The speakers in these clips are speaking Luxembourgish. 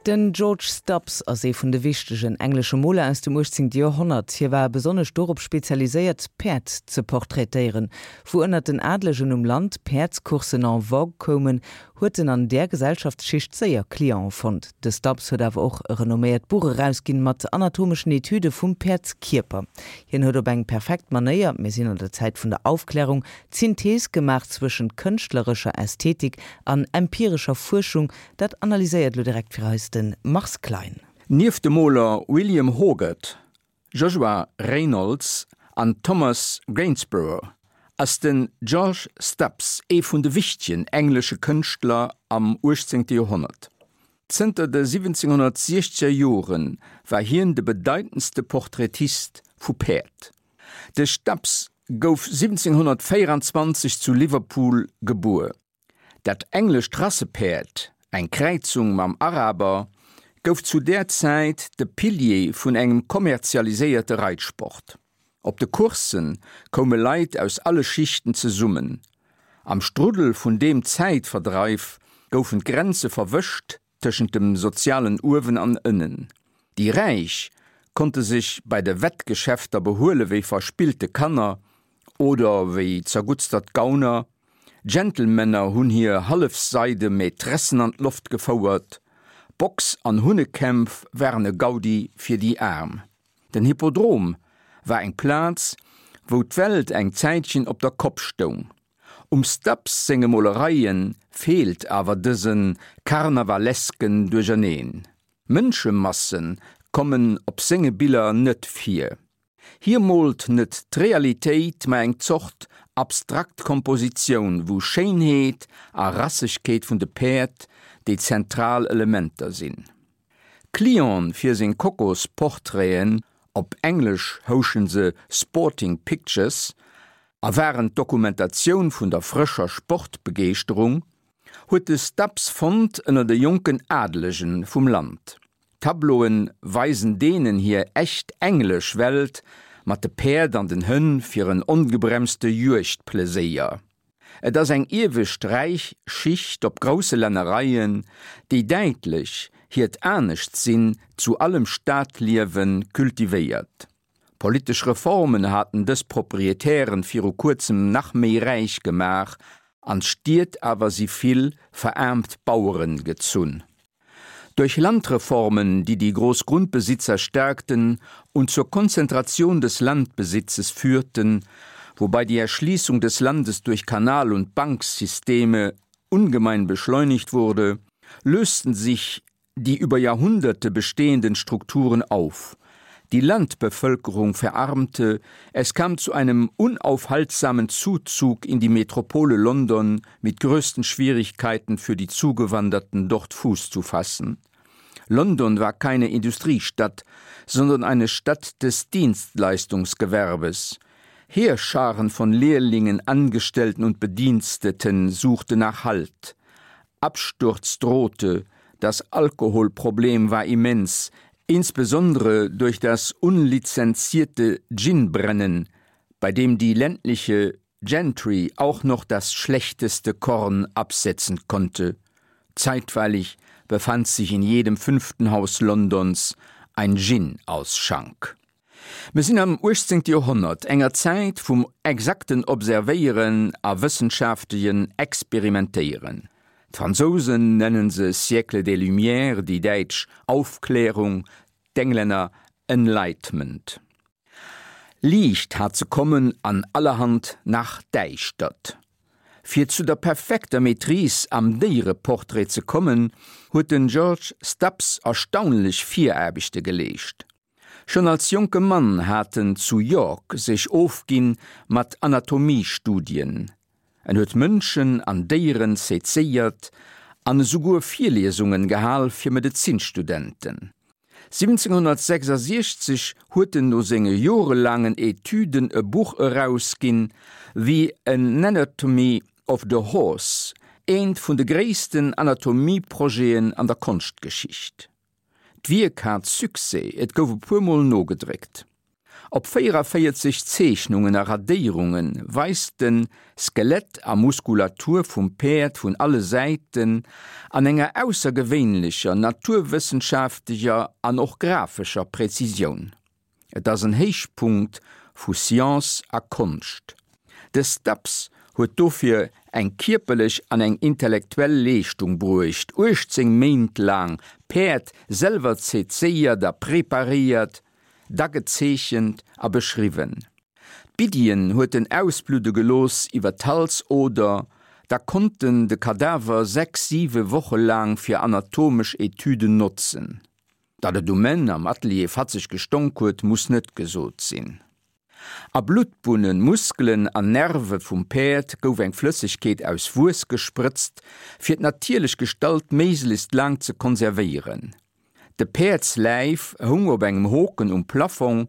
Den George Stubbs ass ee vun de wichtegen englesche Moler aus dem 18. Joerhonnert. Hie war besonnesch dorop spezialiséiert, Päerd ze portraitéieren. Wou ënnert den Adlegen um Land Päerdscourssen en vogue koumen, huet en an där Gesellschaftsschicht séier Cliente fonnt. De Stubbs huet awer och e renomméiert Buch erausginn mat anatomeschen Etüde vum Päerdskierper. Hien huet op eng perfekt Manéier, mir sinn an der Zäit vun der Aufklärung, d'Synthees gemaach zwëschent kënschtlerescher Ästhetik an empirescher Fuerschung, Dat analyséiert elo direkt fir eis de Mars Klein. Nieft de Moler William Hogarth, Joshua Reynolds an Thomas Gainsborough ass den George Stubbs ee vun de wichtegen englesche Kënschtler am 18. Joerhonnert. Zënter de 1760er Jore war hien de bedeitendste Portraitist vu Päerd. De Stubbs gouf 1724 zu Liverpool gebuer. Dat englescht Rassepäerd, eng Kräizung mam Araber, gouf zu där Zäit de Pilier vun engem kommerzialiséierte Reitsport. Op de Coursse koume Leit aus alle Schichten zesummen. Am Struddel vun deem Zäitverdreif goufen d'Grenze verwëscht tëschent dem sozialen Uewen an Ënnen. Déi Räich konnte sech bei de Wettgeschäfter behuele wéi verspillte Kanner oder wéi zerguttstert Gauner. Gentlemänner hunn hir hallefseide Maîtressen an d'Loft gefouert. Box an Hunnekämpf waren e Gaudi fir déi Aarm. Den Hippodrom war eng Plaz, wou d'Welt eng Zäitchen op der Kopp stoung. Um Stubbs senge Molereie feelt awer dëse karnavalesken Duercherneen. Mënschemasse kommen op senge Biller net vir. Hie moolt net d'Realitéit, ma eng Zort abstrakt Kompositioun, wou Schéinheet a Rassegkeet vun de Päerd déi zentral Elementer sinn. Clienten fir seng Kokosportraiten, op Englesch houschen se Sporting Pictures a waren d'Dokumentatioun vun der frëscher Sportbegeeschterung, huet de Stubbs fonnt ënner de jonken Adelege vum Land. D'Tableaue weisen deenen hir echt englesch Welt mat de Päerd an den Hënn fir en ongebremste Juegdpleséier. Et ass eng iewescht räich Schicht op grousse Lännereien, déi däitlech hiert Aneschtsinn zu allem Stadliewe kultivéiert. Politesch Reformen haten dës Proprietären viru kuerzem nach méi räich gemaach, an d'Stied awer si vill veraarmt Baueren gezunn. Durch Landreformen, die die Großgrundbesitzer stärkten und zur Konzentration des Landbesitzes führten, wobei die Erschließung des Landes durch Kanal- und Banksysteme ungemein beschleunigt wurde, lösten sich die über Jahrhunderte bestehenden Strukturen auf. Die Landbevölkerung verarmte, es kam zu einem unaufhaltsamen Zuzug in die Metropole London mit größten Schwierigkeiten für die Zugewanderten dort Fuß zu fassen. London war keine Industriestadt, sondern eine Stadt des Dienstleistungsgewerbes. Heerscharen von Lehrlingen, Angestellten und Bediensteten suchten nach Halt. Absturz drohte, das Alkoholproblem war immens, insbesondere durch das unlizenzierte Ginbrennen, bei dem die ländliche Gentry auch noch das schlechteste Korn absetzen konnte. Zeitweilig befand sich in jedem fünften Haus Londons ein Gin-Ausschank. Mir sinn am 18. Joerhonnert, enger Zäit vum exakten Observéieren a wëssenschaftegen Experimentéieren. D'Fransousen nennen se Siècle des Lumières, déi Däitsch Aufklärung, d'Englänner Enlightenment. Liicht hat ze kommen an allerhand nach Däischtert. Fir zu der perfekter Maîtrise am Déiereportrait ze kommen, huet den George Stubbs erstaunlech Viraarbechte geleescht. Schonn als jonke Mann hat en zu York sech ofginn mat Anatomiestudien. En huet Mënschen an Déieren sezéiert an esouguer Virliesungen gehal fir Medezinstudenten. 1766 huet en no senge jorelaangen Etüden e Buch erausginn, The Anatomy of the Horse, eent vun de gréissten Anatomieprojeten an der Konschtgeschicht. D'Wierk hat Succès, et gouf e puer Mol nogedréckt. Op 44 Zeechnungen a Radéierunge weist en Skelett a Muskulatur vum Päerd vun alle Säiten an enger aussergewéinlecher naturwëssenschafteger an och grafescher Präzisioun. Et ass en Héichpunkt vu Science a Konscht. De Stubbs huet dofir eng kierperlech an eng intellektuell Leeschtung bruecht, 18 Méint laang Päerd selwer sezéiert a preparéiert, da gezeechent a beschriwwen. D'Biddien huet en ausbludde gelooss iwwer d'Halsoder, da konnt en de Kadaver 6, 7 Woche laang fir anatomesch Etüden notzen. Datt et um Enn am Atelier fatzeg gestonk huet, muss net gesot sinn. A Bluttbunnen, Muskelen an Nerve vum Päerd gouf eng Flëssegkeet aus Wuess gesprëtzt, fir d'natierlech Gestalt méiglechst laang ze konservéieren. De Päerdsläif houng op engem Hoken um Plafong,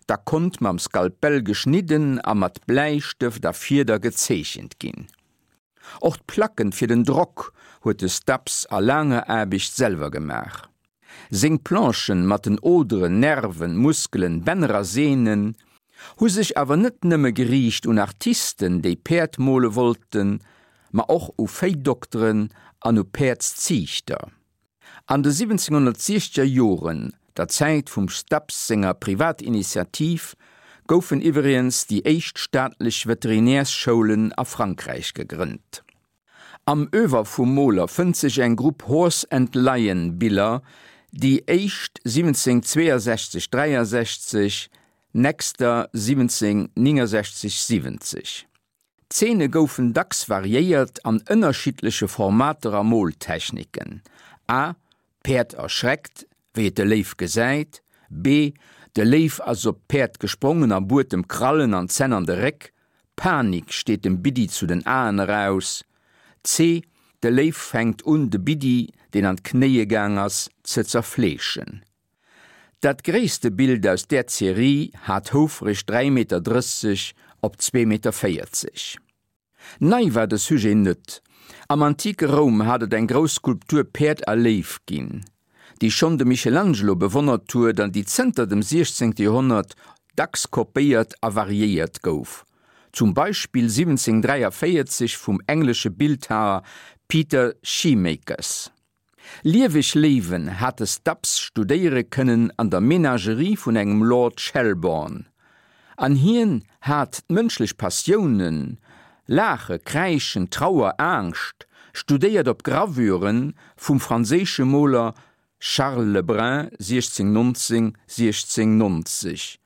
da konnt mam Skalpell geschnidden a mat Bläistëft a Fieder gezeechent ginn. Och d'Placken fir den Drock huet de Stubbs a laanger Aarbecht selwer gemaach. Seng Planchen mat den Oderen, Nerven, Muskelen, Bänner a Sehnen hu sech awer net nëmme geriicht un Artisten, déi Päerd mole wollten, ma och u Véidokteren an u Päerdsziichter. An de 1760er Joren, der Zäit vum Stubbs senger Privatinitiativ, goufen iwwregens déi éischt staatlech Veterinärsschoulen a Frankräich gegrënnt. Am Oeuvre vum Moler fënnt sech eng Grupp Horse and Lion Biller, déi éischt 1762 63, nächster 1769 70. D'Zeene goufen dacks variéiert an ënnerschiddleche Formater a Moltechniken, a, D'Päerd erschreckt, wéi et de Léiw gesäit, b, De Léiw ass op d'Päerd gesprongen a buert em Krallen an Zänn an de Réck, Panik steet dem Biddi zu den Aen eraus, c, De Léiw fänkt un, de Biddi, deen an d'Knéie gaang ass, ze zerfleeschen. Dat gréisste Bild aus där Serie hat houfreg 3,30 Meter op 2,40 Meter. Nei war de Sujet net. Am antike Roum hat et eng grouss Skulptur Päerd a Léiw ginn, déi schonn de Michelangelo bewonnert huet an déi zënter dem 16. Joerhonnert dacks kopéiert a variéiert gouf, zum Beispill 1743 vum englesche Bildhaer Peter Scheemakers. Lieweg Léiwen hat de Stubbs studéiere kënnen an der Menagerie vun engem Lord Shelbourne. An hien hat d'mënschlech Passiounen, Laache, Kräischen, Trauer, Angscht, studéiert op Gravüre vum franséische Moler Charles Le Brun, 1619, 1690,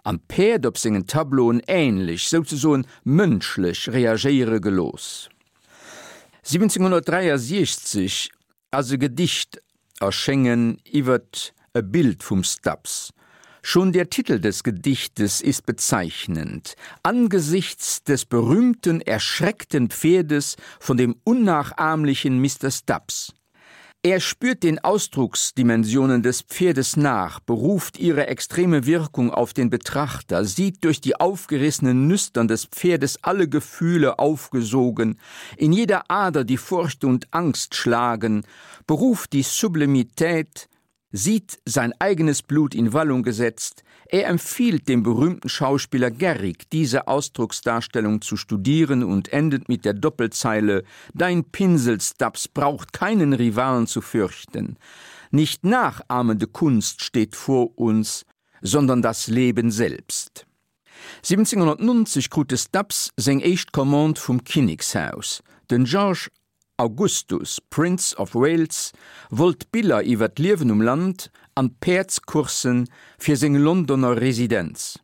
an d'Päerd op sengen Tableauen änlech, souzesoen mënschlech reagéiere gelooss. 1763 ass e Gedicht erschéngen iwwert e Bild vum Stubbs. Schon der Titel des Gedichtes ist bezeichnend, Angesichts des berühmten erschreckten Pferdes von dem unnachahmlichen Mister Stubbs. Er spürt den Ausdrucksdimensionen des Pferdes nach, beruft ihre extreme Wirkung auf den Betrachter, sieht durch die aufgerissenen Nüstern des Pferdes alle Gefühle aufgesogen, in jeder Ader die Furcht und Angst schlagen, beruft die Sublimität, sieht sein eigenes Blut in Wallung gesetzt, er empfiehlt dem berühmten Schauspieler Garrick, diese Ausdrucksdarstellung zu studieren und endet mit der Doppelzeile: Dein Pinsel, Stubbs, braucht keinen Rivalen zu fürchten. Nicht nachahmende Kunst steht vor uns, sondern das Leben selbst. 1790 krut de Stubbs seng éischt Commande vum Kinnekshaus. Den George Augustus, Prince of Wales, wollt Biller iwwer d'Liewen um Land an d'Päerdscourssen fir seng Londoner Residenz.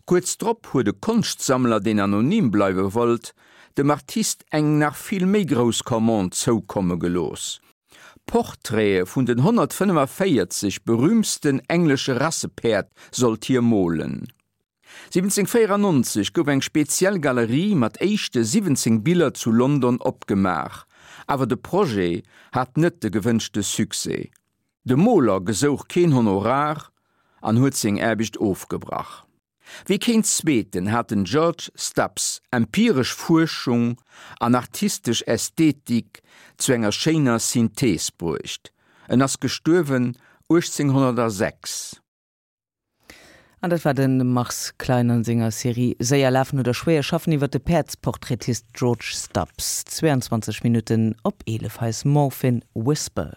Kuerz drop huet e Konschtsammler, deen anonym bleiwe wollt, dem Artist eng nach vill méi grouss Commande zoukomme gelooss, Portraite vun den 145 berüümtsten englesche Rassepäerd sollt hie molen. 1794 gouf eng speziell Galerie mat éischte 17 Biller zu London opgemaach, awer de Projet hat net de gewënschte Succès. De Moler gesouch keen Honorar an huet seng Aarbecht ofgebrach. Wéi keen zweeten hat den George Stubbs empiresch Fuerschung an artistesch Ästhetik zu enger schéiner Synthees bruecht. En ass gestuerwen 1806. An dat war de Mars Klein an senger Serie Séier lafen oder schwéier schaffen iwwer de Päerdsportraitist George Stubbs. 22 Minutten op 11 hei ass Morphine Whisper.